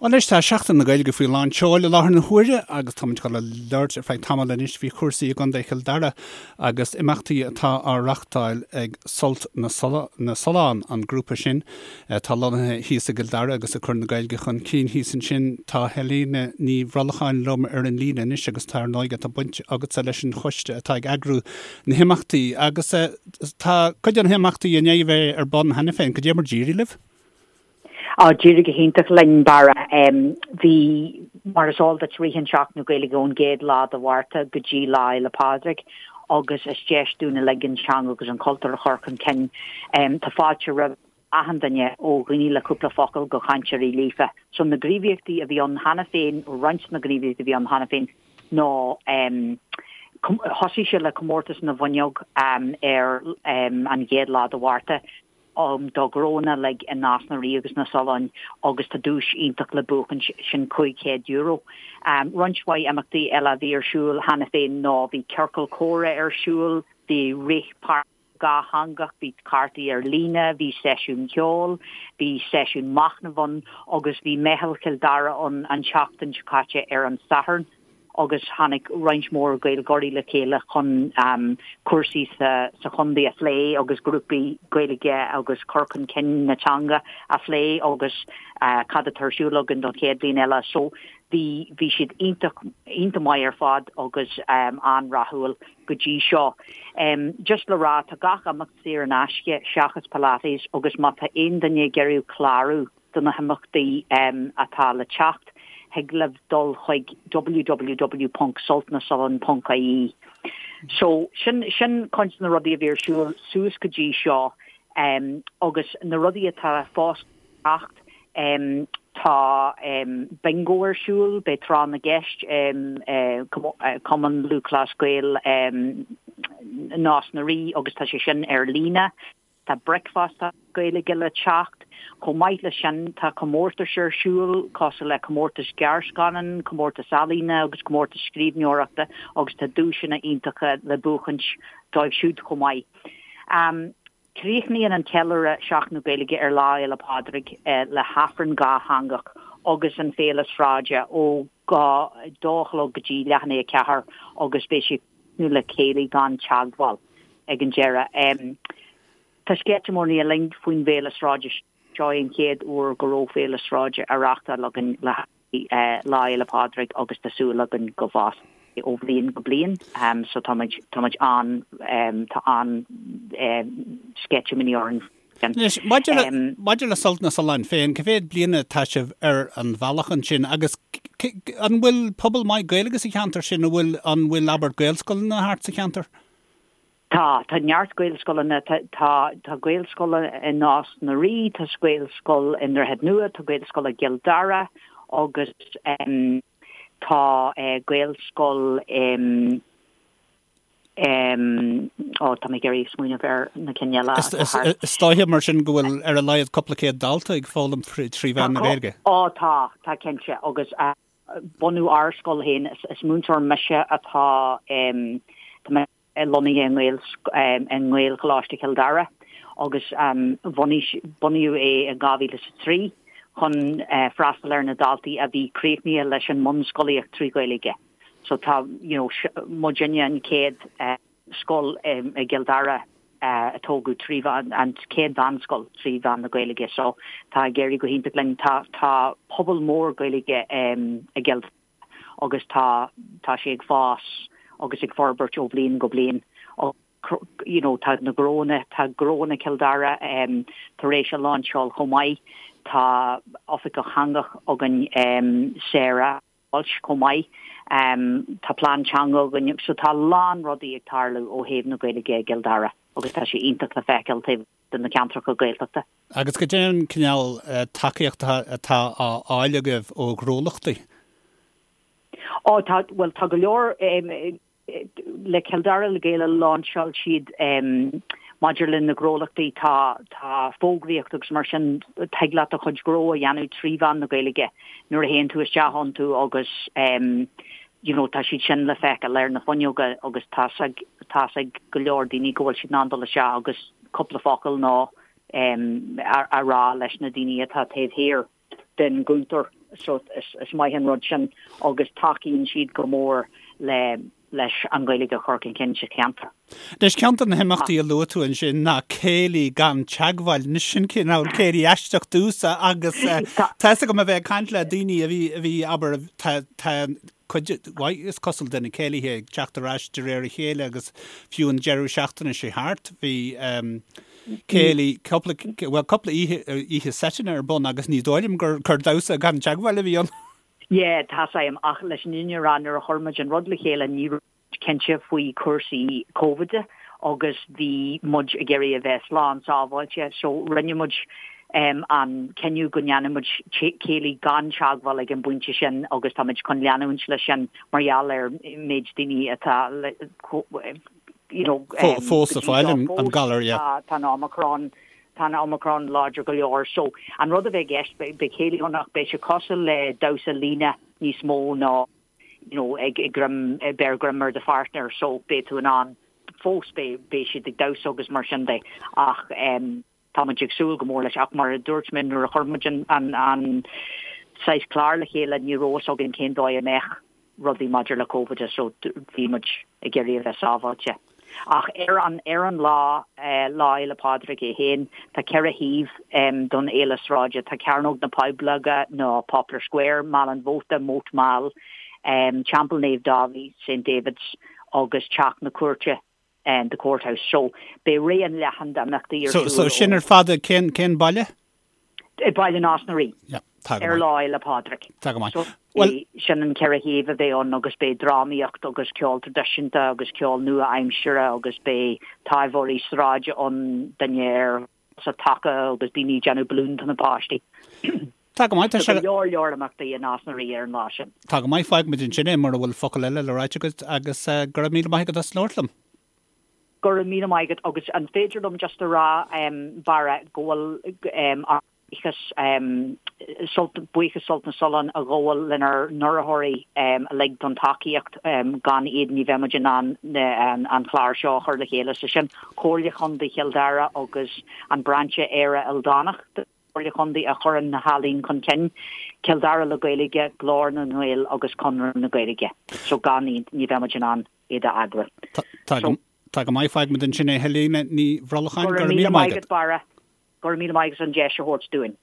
Bhuel anois tá Seachtain na Gaeilge faoi lán tseoil i láthair na huaire agus táimid ag dul a labhairt ar feadh tamaill anois faoi chúrsaí i gContae Chill Dara agus imeachtaí atá á reachtáil ag Sult na Sollán, an grúpa sin atá lonnaithe thíos i gCill Dara agus ag cur na Gaeilge chun cinn thíos ansin. Tá Helena Ní Bhrolcháin liom ar an líne anois agus tá ar ndóigh tá baint agatsa leis an choiste atá ag eagrú na himeachtaí agus tá cuid de na himeachtaí i ndiaidh a bheith ar bun cheana féin. Cad é mar d'éirigh libh? Á, d'éirigh go hiontach linn, Barra. Bhí, mar is eol duit, ritheann Seachtain na Gaeilge ón gcéad lá de Mhárta go dtí Lá Fhéile Pádraig agus is deis dúinn uilig an teanga agus an cultúr a chur chun cinn. Tá fáilte roimh achan duine, ó dhaoine le cúpla focal go chainteoirí líofa. So na gníomhaíochtaí a bhí ann cheana féin, roinnt de na gníomhaíochtaí a bhí ann cheana féin ná thosaigh sé le comórtas na bhfuinneog ar an gcéad lá de Mhárta. do ghnónna uilig i Nás na Rí agus na Solláin agus tá duais iontach le buachaint, sin €500. Roinnt mhaith imeachtaí eile a bhí ar siúl cheana féin ná bhí ciorcal comhrá ar siúl, bhí rith páirce dhátheangach, bhí cártaí ar líne, bhí seisiún ceoil, bhí seisiún machnaimh ann agus bhí Meitheal Chill Dara ann an tseachtain seo caite ar an Satharn. agus tháinig roinnt mhór Gaeilgeoirí le chéile chun cúrsaí sa chontae a phlé agus grúpaí Gaeilge agus cur chun cinn na teanga a phlé agus cad atá ar siúl againn don chéad bhliain eile. So bhí bhí siad iontach iontach maith ar fad agus an-rathúil go dtí seo. Just le rá tá gach imeacht saor in aisce seachas Pilates agus má tá aon duine ag iarraidh clárú do na himeachtaí atá le teacht, thig libh dul chuig www.sultnasollan.ie. So, sin, sin cuid de na rudaí a bhí ar siúl suas go dtí seo agus na rudaí atá fós le teacht, tá bingo ar siúl, beidh tráth na gceist, Cumann Lúthchleas Gael Nás na Rí agus tá sé sin ar líne. Tá bricfeasta Gaeilge le teacht. Chomh maith leis sin, tá comórtais ar siúl, cosúil le comórtas gearrscannán, comórtas ealaíne agus comórtas scríbhneoireachta agus tá duaiseanna iontacha le buachaint dóibh siúd chomh maith. Críochnaíonn an ceiliúradh Seachtain na Gaeilge ar Lá Fhéile Pádraig le hAifreann dhátheangach agus an Féile Sráide ó 2 a chlog go dtí leath i ndiaidh a 4 agus beidh sé nó le céilí gan teagmháil ag an deireadh. Tá sceitimíní orainn faoin bhféile sráide seo é an chéad uair go raibh féile sráide á reáchtáil againn le haghaidh Lá Fhéile Pádraig agus tá súil againn go bhfásfaidh ó bhliain go bliain so táimid táimid an tá an sceitimíní orainn. Anois, maidir le, maidir le Sult na Sollán féin, cá mhéad bliana atá sibh ar an bhealach ansin agus an bhfuil pobal maith Gaeilge sa cheantar sin, an bhfuil, an bhfuil, abair, Gaelscoileanna thart sa cheantar? Tá, tá neart Gaelscoileanna, tá, tá, tá Gaelscoil i Nás na Rí, tá Gaelscoil i nDroichead Nua, tá Gaelscoil i gCill Dara agus tá Gaelscoil i. Ó, tá mé ag iarraidh smaoineamh ar na cinn eile atá thart. Is dóiche mar sin go bhfuil ar a laghad cúpla céad dalta ag foghlaim trí mheán na Gaeilge. Ó, tá, tá cinnte. Agus bunú ár scoil féin, is múinteoir mise atá, tá mé lonnaithe i nGaelcholáiste Chill Dara agus bhunaigh, bunaíodh é in 2003 chun freastal ar na daltaí a bhí críochnaithe leis an mbunscolaíocht trí Ghaeilge. So tá, you know, muidinne an chéad scoil i gCill Dara a tógadh trí mheán, an chéad mheánscoil trí mheán na Gaeilge. So tá ag éirí go hiontach linn. Tá, tá pobal mór Gaeilge i gCill Dara agus tá, tá sé ag fás agus ag forbairt ó bhliain go bliain. You know, tá na gnónna, tá Gnónna Chill Dara tar éis a láinseáil chomh maith. Tá oifigeach teanga againn, Sarah. Walsh chomh maith. Tá plean teanga againn so tá a lán rudaí ag tarlú ó thaobh na Gaeilge i gCill Dara agus tá sé iontach le feiceáil taobh de na ceantracha Gaeltachta. Agus cad é an cineál tacaíochta atá á fháil agaibh ó ghnólachtaí? Ó tá, bhuel tá go leor, le Cill Dara le Gaeilge láinseáil siad maidir le na gnólachtaí tá tá fógraíocht agus mar sin tig leat do chuid gnó a dhéanamh trí mheán na Gaeilge nuair a théann tú isteach iontu agus you know tá siad sin le feiceáil ar na fuinneoga agus tá's ag tá's ag go leor daoine go bhfuil siad in ann dul isteach agus cúpla focal nó a rá leis na daoine atá taobh thiar den gcuntar. so is maith an rud sin agus tacaíonn siad go mór le leis an Ghaeilge a chur chun cinn sa cheantar. Anois, ceann de na himeachtaí a luaigh tú ansin ná céilí gan teagmháil. Anois, sin cineál céilí aisteach domhsa agus tá fhios agam a bheith ag caint le daoine a bhí, a bhí, abair, tá, tá cuid mhaith, is cosúil, de na céilithe ag teacht ar ais de réir a chéile agus fiú an deireadh seachtaine seo thart bhí céilí, cúpla, bhuel, cúpla oíche, oíche seiteanna ar bun agus ní dóigh liom gur, gur damhsa gan teagmháil a bhí ann. Yeah, tá's a'm, ach leis an fhírinne a rá, nuair a chuir muid an rud le chéile ní raibh muid cinnte faoi chúrsaí Covid agus bhí muid ag iarraidh a bheith slán sábháilte so rinne muid an cinneadh go ndéanfadh muid céilí gan teagmháil ag an bpointe sin agus tá muid chun leanúint leis sin mar gheall ar méid daoine atá you know fós ag fáil an galar, yeah. Tá an Omicron Tá an Omicron láidir go leor so an rud a bheidh i gceist, beidh céilí ann ach beidh sé cosúil le damhsa líne níos mó ná you know ag greim, beir greim ar do pháirtneir so beidh tú in ann fós beidh, beidh siad ag damhsa agus mar sin de ach em tá muid ag súil go mór leis ach mar a dúirt mé nuair a chuir muid an, an, an saghas clár le chéile ní raibh fhios againn cén dóigh a mbeadh rudaí maidir le Covid so bhí muid ag iarraidh a bheith sábháilte. Ach ar an ar an lá, Lá Fhéile Pádraig é féin, tá 4 thaobh don fhéile sráide, tá Cearnóg na Poibleoige nó Poplar Square, Meal an Mhóta, Moat Mall, Teampall Naomh Dáibhí, St David's, agus Teach na Cúirte, The Courthouse. So beidh raon leathan d'imeachtaí ar siúl. So sin ar fad i cén cén baile? I Baile Nás na Rí. Yeah, tá go maith. Ar Lá Fhéile Pádraig. Tá go maith. So Well, sin an 4 thaobh a bheidh ann agus beidh drámaíocht agus ceol traidisiúnta agus ceol nua-aimsire agus beidh taibheoirí sráide ann, duine ar sa taca agus daoine ag déanamh balún do na páistí. Tá go maith, tá sé. Go leor leor imeachtaí i Nás na Rí ar an lá sin. Tá go maith, fágfaimid ansin é mura bhfuil focal eile le ráit agat agus go raibh míle maith agat as labhairt liom. Go raibh míle maith agat agus an féidir liom just a rá Barra go bhfuil ár mbuíochas Sult buíochas Sult na Sollán a ghabháil lenár n-urraitheoirí uilig don tacaíocht gan iad ní bheadh muid in ann an clár seo a chur le chéile so sin Comhairle Chontae Chill Dara agus an Brainse Éire Ildánach den Chomhairle Chontae a chuireann na healaín chun cinn, Cill Dara le Gaeilge, Glór na nGael agus Conradh na Gaeilge so gan iad ní bheadh muid in ann iad a eagrú. Tá go maith, fágfaimid ansin é Helena Ní Bhrolcháin, go raibh míle maith agat Barra, go raibh míle maith agat as an deis a thabhairt dúinn.